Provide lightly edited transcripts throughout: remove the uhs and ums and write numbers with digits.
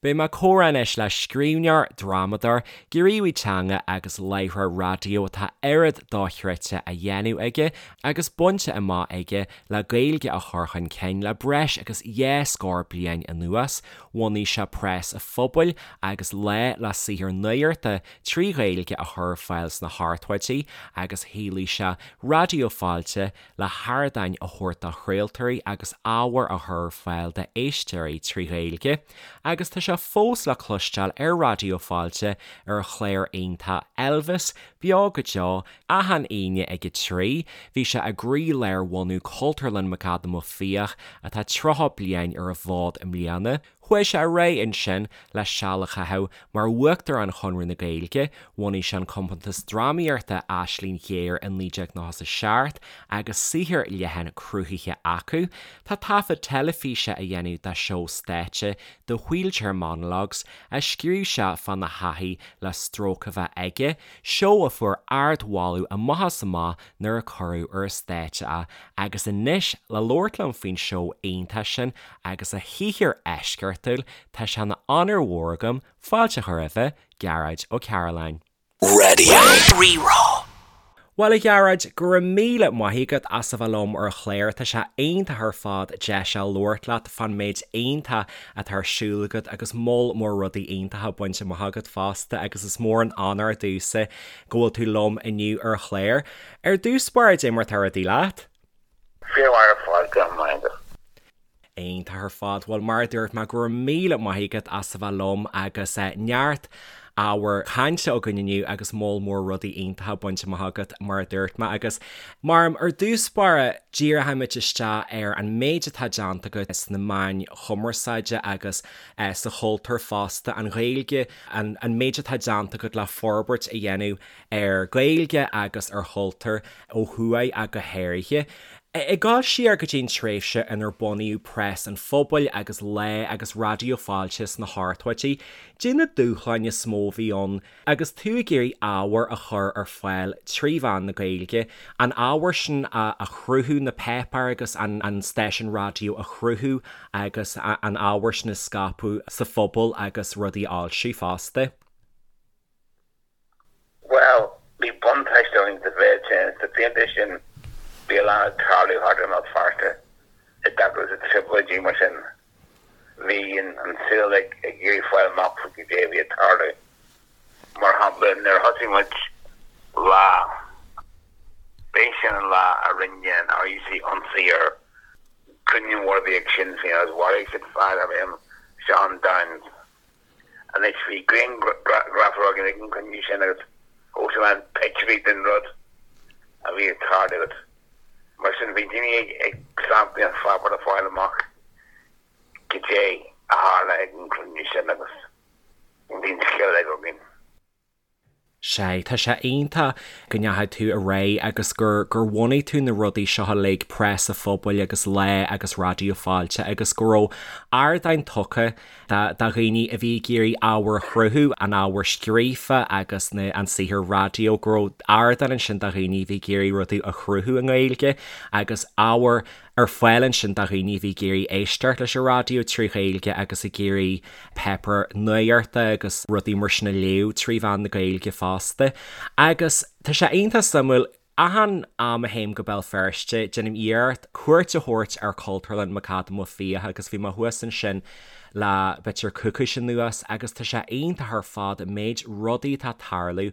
Beidh mé ag comhrá anois le scríbhneoir, drámadóir, gníomhaí teanga agus láithreoir raidió atá oiread dochreidte á dhéanamh aige agus bainte amach aige le Gaeilge a chur chun cinn le breis agus dhá scór bliain anuas. Bhunaigh sé Preas an Phobail agus Lá le saothar nuachta trí Ghaeilge a chur ar fáil sna hochtóidí agus shaolaigh sé Raidió Fáilte le hardáin a thabhairt do chraoltóirí agus ábhar a chur ar fáil d'éisteoirí trí Ghaeilge, agus tá sé fós le cloisteáil ar Raidió Fáilte ar a chlár iontach Elvis, Beo go Deo, achan Aoine ag 3. Bhí sé i gcroílár bhunú Cultúrlann McAdam Ó Fiaich, atá 30 bliain ar an bhfód i mbliana. Chuaigh sé ar aghaidh ansin le seal a chaitheamh mar Uachtarán Chonradh na Gaeilge, bhunaigh sé an compántas drámaíochta Aisling Ghéar i 1997 agus saothar leathan cruthaithe acu. Tá taifead teilifíse á dhéanamh dá seó stáitse The Wheelchair Monologues a scríobh sé fána thaithí le stróc a bheith aige, seó a fuair ardmholadh amach is amach nuair a cuireadh ar an stáitse é agus anois le labhairt liom faoin seó iontach sin agus a shaothar eisceachtúil, tá sé ina onóir mhór agam fáilte a chur roimhe, Gearóid Ó Cairealláin. Radio Rí-Rá. Bhuel a Ghearóid, go raibh míle maith agat as a bheith liom ar an chlár, tá sé iontach ar fad deis a labhairt leat fán méid iontach atá ar siúl agat agus moll mór rudaí iontacha bainte amach agat fosta agus is mór an onóir domhsa go bhfuil tú liom inniu ar an chlár. Ar dtús báire, cad é mar atá rudaí leat? Fíormhaith ar fad, go raibh maith agat. Iontach ar fad. Bhuel, mar a dúirt mé, go raibh míle maith agat as a bheith liom agus neart ábhar cainte againn inniu agus moll mór rudaí iontacha bainte amach agat, mar a dúirt mé. Agus mar ar dtús báire, díreoimid isteach ar an méid atá déanta agat sna meáin chumarsáide agus sa chultúr fosta, an Ghaeilge, an méid atá déanta agat le forbairt a dhéanamh ar Ghaeilge agus ar chultúr ó thuaidh ach go háirithe. Ag dul siar go dtí an tréimhse inar bunaíodh Preas an Phobail agus Lá agus Raidió Fáilte sna hochtóidí, caidé na dúshláin is mó a bhí ann agus tú ag iarraidh ábhar a chur ar fáil trí mheán na Gaeilge, an ábhar sin a chruthú, na páipéir agus an stáisiún raidió a chruthú agus an ábhar sin a scaipeadh sa phobal agus rudaí a fhoilsiú fosta? Bhuel, bhí buntáiste againn sa mhéid sin, sna blianta sin bhí a lán ag tarlú thart i mBéal Feirste i dtaca leis na trioblóidí mar sin bhí an saol ag iarraidh fáil amach faoi cad é a bhí ag tarlú. Mar shampla, nuair a thosaigh muid Lá, b'é sin an lá a rinne an RUC ionsaí ar chruinniú mór a bhí ag Sinn Féin agus mharaigh siad fear darbh ainm Seán Downes. Anois bhí grianghrafadóir againn ag an gcruinniú sin agus thóg sé a lán pictiúirí den rud a bhí ag tarlú agus mar sin bhí daoine ag clamp an pháipéir le fáil amach cad é a tharla ag an gcruinniú sin agus bhí an scéal uilig againn. Sea, tá sé iontach go ndeachaigh tú ar aghaidh agus gur gur bhunaigh tú na rudaí seo uilig, Preas an Phobail agus Lá agus Raidió Fáilte agus go raibh ardáin tugtha do dhaoine a bhí ag iarraidh ábhar a chruthú, an ábhar scríofa agus na an saothar raidió, go raibh ardán ansin do dhaoine a bhí ag iarraidh rudaí a chruthú i nGaeilge agus ábhar ar fáil ansin do dhaoine a bhí ag iarraidh éisteacht leis an raidió trí Ghaeilge agus ag iarraidh páipéar nuachta agus rudaí mar sin a léamh trí mheán na Gaeilge fosta. Agus tá sé iontach suimiúil, achan am a théim go Béal Feirste, déanaim iarracht cuairt a thabhairt ar Chultúrlann McAdam Ó Fiaich agus bhí mé thuas ansin le b'fhéidir coicís anuas agus tá sé iontach ar fad an méid rudaí atá ag tarlú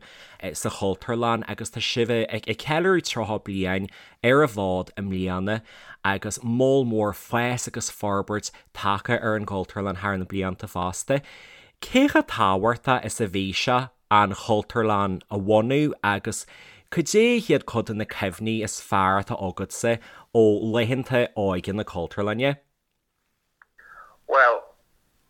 sa Chultúrlann agus tá sibh ag ceiliúradh 30 bliain ar an bhfód i mbliana agus moll mór fás agus forbairt tagtha ar an gCultúrlann thar na blianta fosta. Cé chomh tábhachtach is a bhí sé an Chultúrlann a bhunú agus cad é hiad cuid de na cuimhní is fearr atá agatsa ó laethanta óige na Cultúrlainne? Bhuel,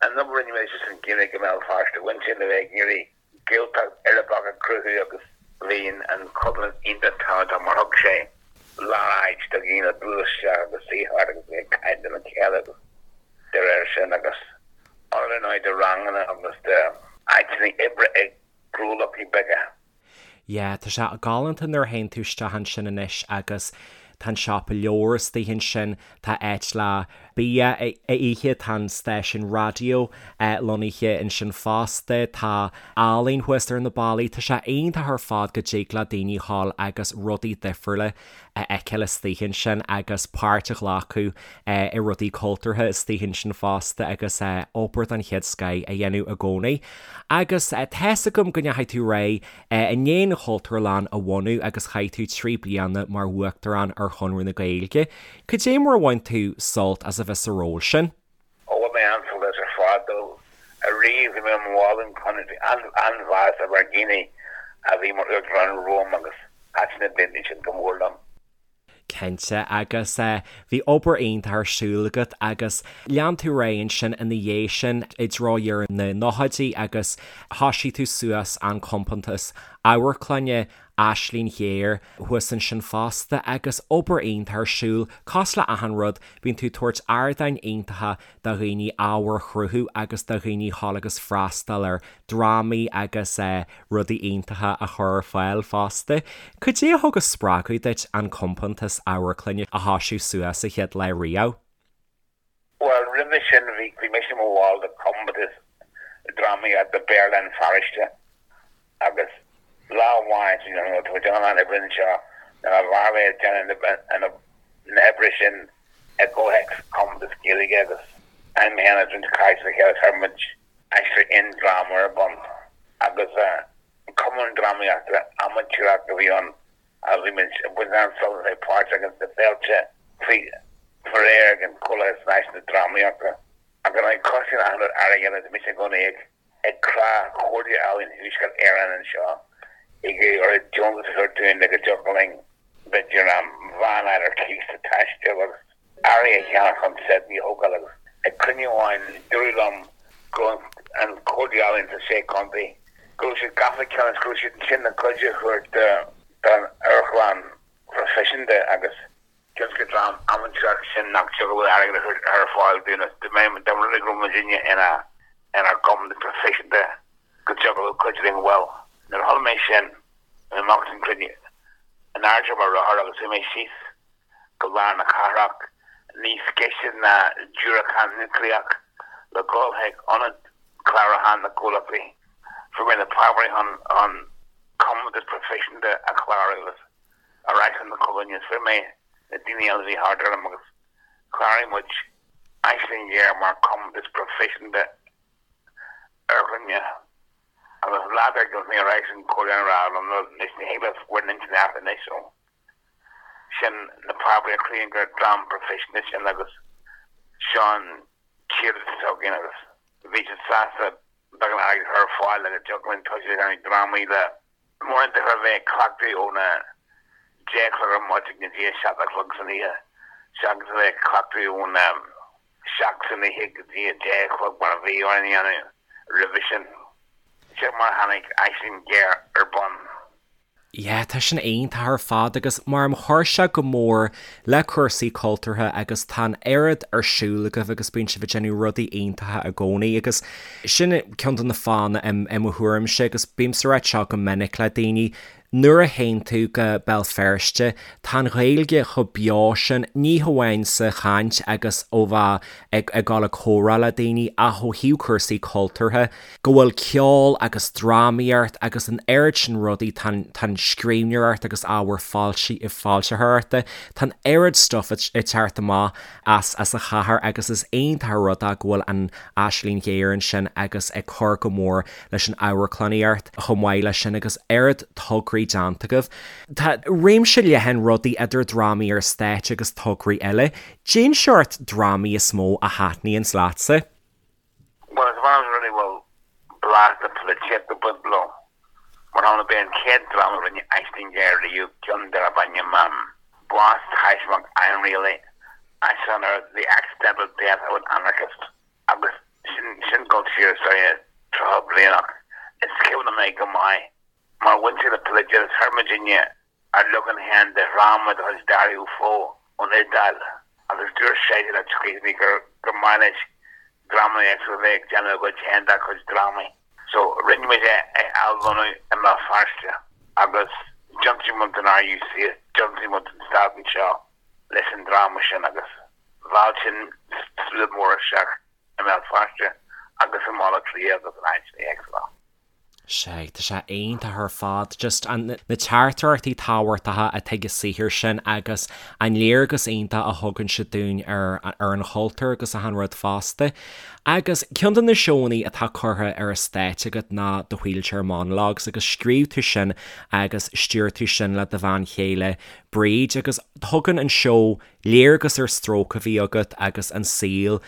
an obair a rinne muid leis an Ghaeilge i mBéal Feirste, bhain sé le bheith ag iarraidh Gaeltacht uirbeach a chruthú agus bhí an Chultúrlann iontach tábhachtach mar thug sé lár-áit do dhaoine bualadh isteach agus suí thart agus bheith ag caint lena chéile agus de réir sin agus ionad ar ndóigh do ranganna agus d'áiteanna oibre ag gnólachtaí beaga. Yeah, tá sé galánta nuair a théann tú isteach ansin anois agus tá an siopa leabhar istigh ansin, tá áit le. bia a ithe, tá an stáisiún raidió lonnaithe ansin fosta, tá ealaín thuas ar na ballaí, tá sé iontach ar fad go dtig le daoine dhul agus rudaí difriúla a fheiceáil istigh ansin agus páirt a ghlacadh i rudaí cultúrtha istigh ansin fosta agus obair den chéad scoith a dhéanamh i gcónaí. Agus tá's agam go ndeachaigh tú ar aghaidh i ndiaidh an Chultúrlann a bhunú agus chaith tú 3 bliana mar Uachtarán ar Chonradh na Gaeilge. Cad é mar a bhain tú sult as a bheith sa ról sin? Ó bhain mé an-sult as ar fad. Ariamh bhí mé i mo bhall den Chonradh, bhí an-mheas ar dhaoine a bhí mar Uachtarán romham agus thaitin na blianta sin go mór liom. Cinnte, agus bhí obair iontach ar siúl agat agus lean tú ar aghaidh ansin ina dhiaidh sin i dtreo dheireadh na nóchaidí agus thoisigh tú suas an compántas amharclainne Aisling Ghéar thuas ansin fosta agus obair iontach ar siúl, cosúil le achan rud, bíonn tú ag tabhairt ardáin iontacha do dhaoine ábhar a chruthú agus do dhaoine dhul agus freastal ar drámaí agus rudaí iontacha a chur ar fáil fosta. Cad é a thug an spreagadh duit an compántas amharclainne a thoisiú suas sa chéad lá riamh? Bhuel, roimhe sin bhí bhí mise i mo bhall de compántas drámaíochta Béarla Feirste agus lá amháin you know, tá muid ag déanamh oibre anseo nuair a bheadh mé ag déanamh na hoibre sin i gcomhthéacs compántas Gaeilge agus an mé féin agus roinnt cairde le chéile chuir muid Aisling dráma ar bun agus cumann drámaíochta amaitéarach a bhí ann agus bhí muid ag baint an-sult as a bheith páirteach ins na féilte faoi réir ag an Chomhlathas Náisiúnta Drámaíochta. Ach ar ndóigh cosnaíonn achan rud airgead agus bhí mise i gcónaí ag ag crá Chomhairle Ealaíon Thuaisceart Éireann anseo ag iarraidh orthu deontas a thabhairt dúinn le go dtiocfadh linn b'fhéidir veain a fháil ar cíos le taisteal agus earraí a cheannach chun seiteanna a thógáil agus ag cruinniú amháin dúradh liom go raibh an Chomhairle Ealaíon sa Sé Chontae, go raibh siad gafa le ceann agus go raibh siad ansin le cuidiú a thabhairt don amharclann phroifisiúnta agus cionn is gur dream amaitéarach sinn nach dtiocfadh leo airgead a chur ar fáil dúinn agus dá mba rud é go raibh muidinne inár gcompántas proifisiúnta go dtiocfadh leo cuidiú linn. Bhuel, nuair a chuala mé sin, bhí mé amach as an gcruinniú in airde ar mo rothar agus chuaigh mé síos go lár na cathrach, níos gaise ná diúracán núicléach, le dhul chuig ionad clárúcháin na gcomhlachtaí. Fuair mé na páipéirí chun an compántas proifisiúnta a chlárú agus ar ais chun na Cultúrlainne agus fuair mé na daoine eile a bhí thart orm agus chláraigh muid Aisling Ghéar mar chompántas proifisiúnta amharclainne. Agus lá dár gcionn mé ar ais an Chomhairle a rá liom anois ní thig libh bhur n-intinn a athrú anois so. Sin na páipéirí a chruthaíonn gur dream proifisiúnta sinn agus seo an t-iarratas atá againn agus bhí siad sásta beagán airgid a chur ar fáil le go dtiocfadh linn tosú ag déanamh drámaí le mórán a bheith ag cleachtadh óna 10 a chlog ar maidin go dtí a 7 a chlog san oíche seachas a bheith ag cleachtadh óna 7 san oíche go dtí a 10 a chlog mar a bhí orainn a dhéanamh roimhe sin. Sin mar a tháinig Aisling Ghéar ar bun. Yeah, tá sin iontach ar fad agus mar chuir sé go mór le cúrsaí cultúrtha agus tá an oiread ar siúl agaibh agus bíonn sibh ag déanamh rudaí iontacha i gcónaí agus sin ceann de na fáthanna i mo thuairimse agus bímse ag ráit seo go minic le daoine, nuair a théann tú go Béal Feirste tá an Ghaeilge chomh beo sin, ní hamháin sa chaint agus ó bheith ag ag dul ag comhrá le daoine ach ó thaobh cúrsaí cultúrtha. go bhfuil ceol agus drámaíocht agus an oiread sin rudaí, tá an, tá an scríbhneoireacht agus ábhar foilsi, foilsitheoireachta, tá an oiread stuff ag teacht amach as, as an chathair agus is iontach an rud é go bhfuil an Aisling Ghéar ansin agus ag cur go mór leis an amharclannaíocht chomh maith leis sin agus oiread tograí déanta agaibh. Tá réimse leathan rudaí idir drámaí ar stáitse agus tograí eile. Cén seort drámaí is mó a thaitníonns leatsa? Bhuel, is maith liom rudaí a bhfuil blas na polaitíochta ag baint leo. Mar shampla, b'é an chéad dráma a rinne Aisling Ghéar riamh, ceann darb ainm Bás Taismeach Ainrialaí, aistriúchán ar The Accidental Death of an Anarchist, agus sin, sin dul siar is dóigh 30 bliain ach is cuimhin liom é go maith mar bhain sé le polaitíocht agus chuir muidinne ár leagan féin de dhráma de chuid Dario Fo ón Iodáil agus dúirt seisean le scríbhneoirí gur gur maith leis dreamanna éagsúla a bheith ag déanamh a gcuid féin dá chuid drámaí. So rinne muid é a athlonnú i mBéal Feirste agus d'ionsaigh muid an RUC is d'ionsaigh muid an stát anseo leis an dráma sin agus. Mheall sin slua mór isteach i mBéal Feirste agus i mBaile Átha Cliath agus in áiteanna éagsúla. Sea, tá sé iontach ar fad, just an, na teachtaireachtaí tábhachtacha atá ag an saothar sin agus an léargas iontach a thugann sé dúinn ar, ar an chultúr agus achan rud fosta. Agus ceann de na seónna atá curtha ar an stáitse agat ná The Wheelchair Monologues agus scríobh tú sin agus stiúir tú sin le do bhean chéile Bríd agus tugann an seó léargas ar stróc a bhí agat agus an saol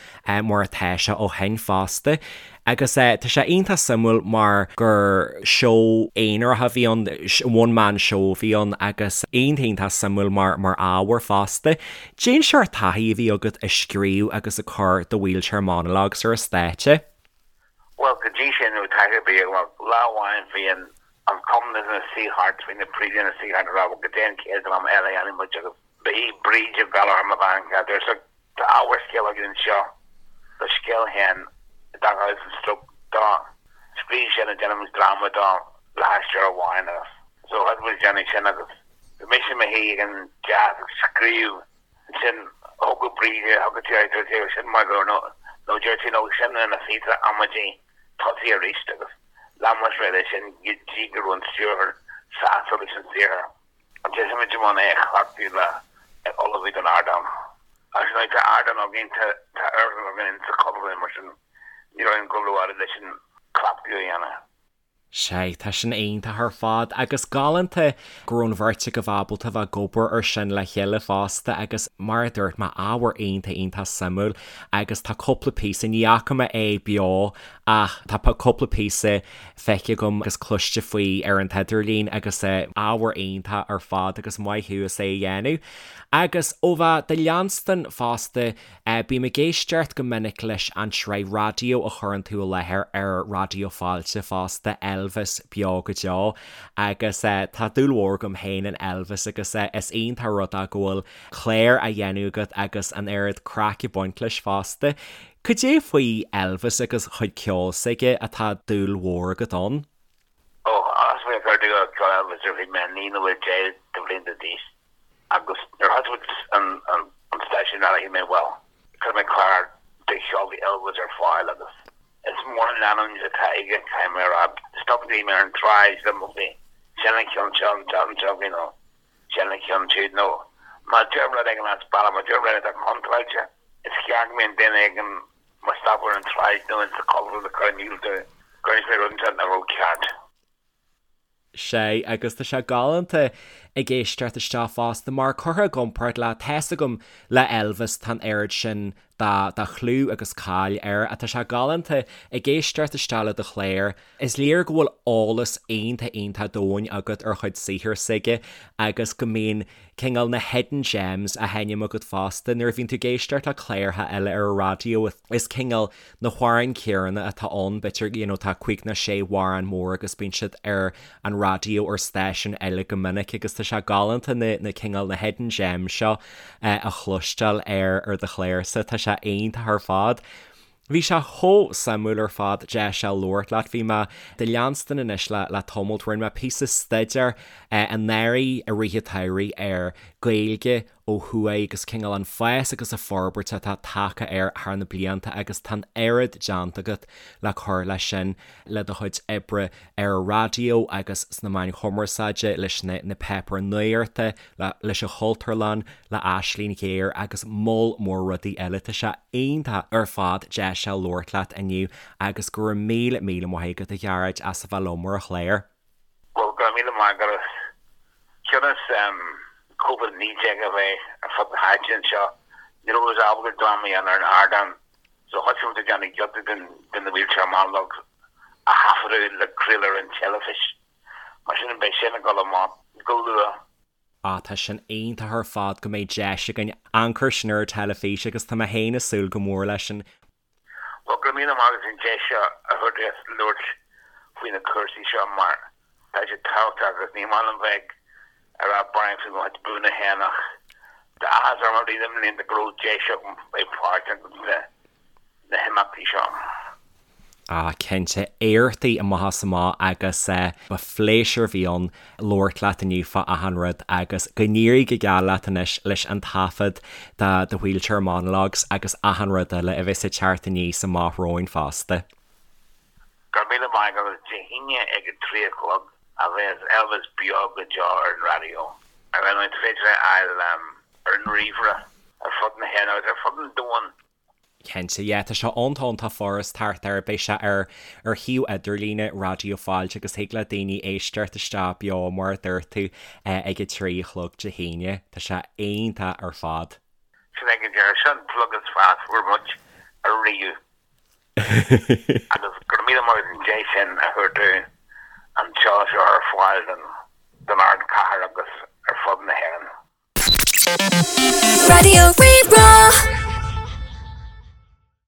mar atá sé ó shin fosta. Agus tá sé iontach suimiúil mar gur seó aonarach a bhí ann, one man show a bhí ann agus iontach iontach suimiúil mar mar ábhar fosta. Cén seort taithí a bhí agat ag scríobh agus ag cur The Wheelchair Monologues ar an stáitse? Bhuel, go dtí sin ní raibh taithí ar bith agam. Lá amháin bhí an an cumann ina suí thart, bhí na príomhoidí ina suí thart ag rá bhuel goidé an chéad dráma eile a dhéanfaidh muid agus Ba í Bríd Ó Gallchóir mo bhean chéile. Dúirt sí, Tá ábhar scéil againn anseo do scéal féin i dtaca leis an stróc dó. Scríobh sin agus déanfaidh muid dráma dó le haisteoir amháin agus so thosaigh muid ag déanamh sin agus bhí mise i mo shuí ag an deasc ag scríobh ansin thógadh Bríd é, thugadh sí air, dúirt sí, sin maith go leor nó nó dúirt sí no sin ina phíosa amaidí tosaigh arís agus lean muid ar aghaidh leis sin go dtí go raibh an stiúrthóir sásta leis an saothar. Thosaigh muid i mbun é a chleachtadh le ullmhú don ardán. Agus anois tá ardán againn, tá amharclann againn sa Chultúrlann mar sin ní raibh orainn dul rófhada leis an cleachtadh a dhéanamh. Sea, tá sin iontach ar fad agus galánta go raibh an bheirt agaibh ábalta bheith ag obair ar sin le chéile fosta agus mar a dúirt mé, ábhar iontach iontach suimiúil agus tá cúpla píosa, ní fhaca mé é beo ach tá cúpla píosa feicthe agam agus cloiste faoi ar an t-idirlíon agus ábhar iontach ar fad agus maith thú as é a dhéanamh. Agus ó bheith do leanstan fosta, bím ag éisteacht go minic leis an tsraith raidió a chuireann tú i láthair ar Raidió Fáilte fosta, Elvis Beo go Deo, agus tá dúil mhór agam féin in Elvis agus is iontach rud é go bhfuil clár á dhéanamh agat agus an oiread craic ag baint leis fosta. Cad é faoi Elvis agus chuid ceoil s'aige atá dúil mhór agat ann? Ó, thosaigh mé ag cur dúil i gceol Elvis nuair a bhí mé 9 nó 10 de bhlianta d'aois agus nuair a thosaigh muid an stáisiún raidió shíl mé bhuel, cuirfidh mé clár de cheol Elvis ar fáil agus is mór an leanúint atá aige, caithfidh mé a rá. Stop daoine ar an tsráid liom ó bhí sin an ceann seo an t-am seo, you know, sin an ceann siúd nó má deirim rud éigin as bealach, má deirim rud atá contráilte, is gearr go mbíonn duine éigin mo stopadh ar an tsráid nó ins an Chultúrlann ag cur in iúl domh gur inis mé rud inteacht nach raibh ceart. Sea, agus tá sé galánta ag éisteacht isteach fosta mar curtha i gcomparáid le, tá's agam, le Elvis, tá an oiread sin de, de chlú agus cáil air ach tá sé galánta ag éisteacht isteach le do chlár. Is léir go bhfuil eolas iontach iontach domhain agat ar chuid saothar s'aige agus go mbíonn cineál na hidden gems á sheinm agat fosta. Nuair a bhíonn tú ag éisteacht le cláracha eile ar an raidió is cineál na hamhráin chéanna atá ann, b'fhéidir you know tá cúig nó sé amhrán mór agus bíonn siad ar an raidió ar stáisiúin eile go minic agus tá sé galánta na na cineál na hidden gems seo a chloisteáil ar ar do chlársa. Tá sé iontach ar fad. Bhí sé chomh suimiúil ar fad deis a labhairt leat. Bhí mé do leanstan anois le le tamalt. Rinne mé píosa staidéir anuraidh i rith an tsamhraidh ar Gaeilge ó thuaidh agus cineál an fás agus an forbairt atá tagtha air thar na blianta agus tá an oiread déanta agat le cur leis sin le do chuid oibre ar an raidió agus sna meáin chumarsáide, leis na na páipéir nuachta, leis an Chultúrlann, le Aisling Ghéar agus moll mór rudaí eile. Tá sé iontach ar fad deis a labhairt leat inniu agus go raibh míle míle maith agat a Ghearóid as a bheith liom ar an chlár. Bhuel, go raibh míle maith agat. Cionn is Covid-19 a bheith ar fud na háite anseo, ní raibh muid ábalta dráma a dhéanamh ar an ardán, so thosaigh muid ag déanamh giota den den The Wheelchair Monologues a thaifeadadh le craoladh ar an teilifís. Mar sin, beidh sin ag dul amach go luath. Ah, tá sin iontach ar fad go mbeidh deis againn amharc air sin ar an teilifís agus tá mé féin ag súil go mór leis sin. Bhuel, go raibh míle maith agat as an deis seo a thabhairt domh labhairt faoi na cúrsaí seo mar tá sé tábhachtach agus ní maith liom bheith ag rá bearán faoi mo chuid buanna féin ach tá áthas orm i rith na mblianta go raibh deis agam bheith páirteach sna himeachtaí seo. Ah cinnte, éachtaí amach is amach agus ba phléisiúr a bhí ann labhairt leat inniu fá achan rud agus go n-éirí go geal leat anois leis an taifead de The Wheelchair Monologues agus achan rud eile a bheas ag teacht aníos amach romhainn fosta. Go raibh míle maith agat agus Dé hAoine ag a 3 a chlog a bheas Elvis beo go deo ar an raidió. Ar ndóigh is féidir é a fháil ar an ríomhaire ar fud na hÉireann agus ar fud an domhain. Cinnte, yeah, tá sé iontach iontach furast thart air, beidh sé ar ar shuíomh idirlíne Raidió Fáilte agus thig le daoine éisteacht isteach beo mar a dúirt tú ag a 3 a chlog Dé hAoine. Tá sé iontach ar fad. Sin é go díreach, sin an plug is fearr a fuair muid ariamh. Agus go raibh míle maith agat an deis sin a thabhairt dúinn an seó seo ar fáil don ardchathair agus ar fud na hÉireann. Raidió Rí-Rá.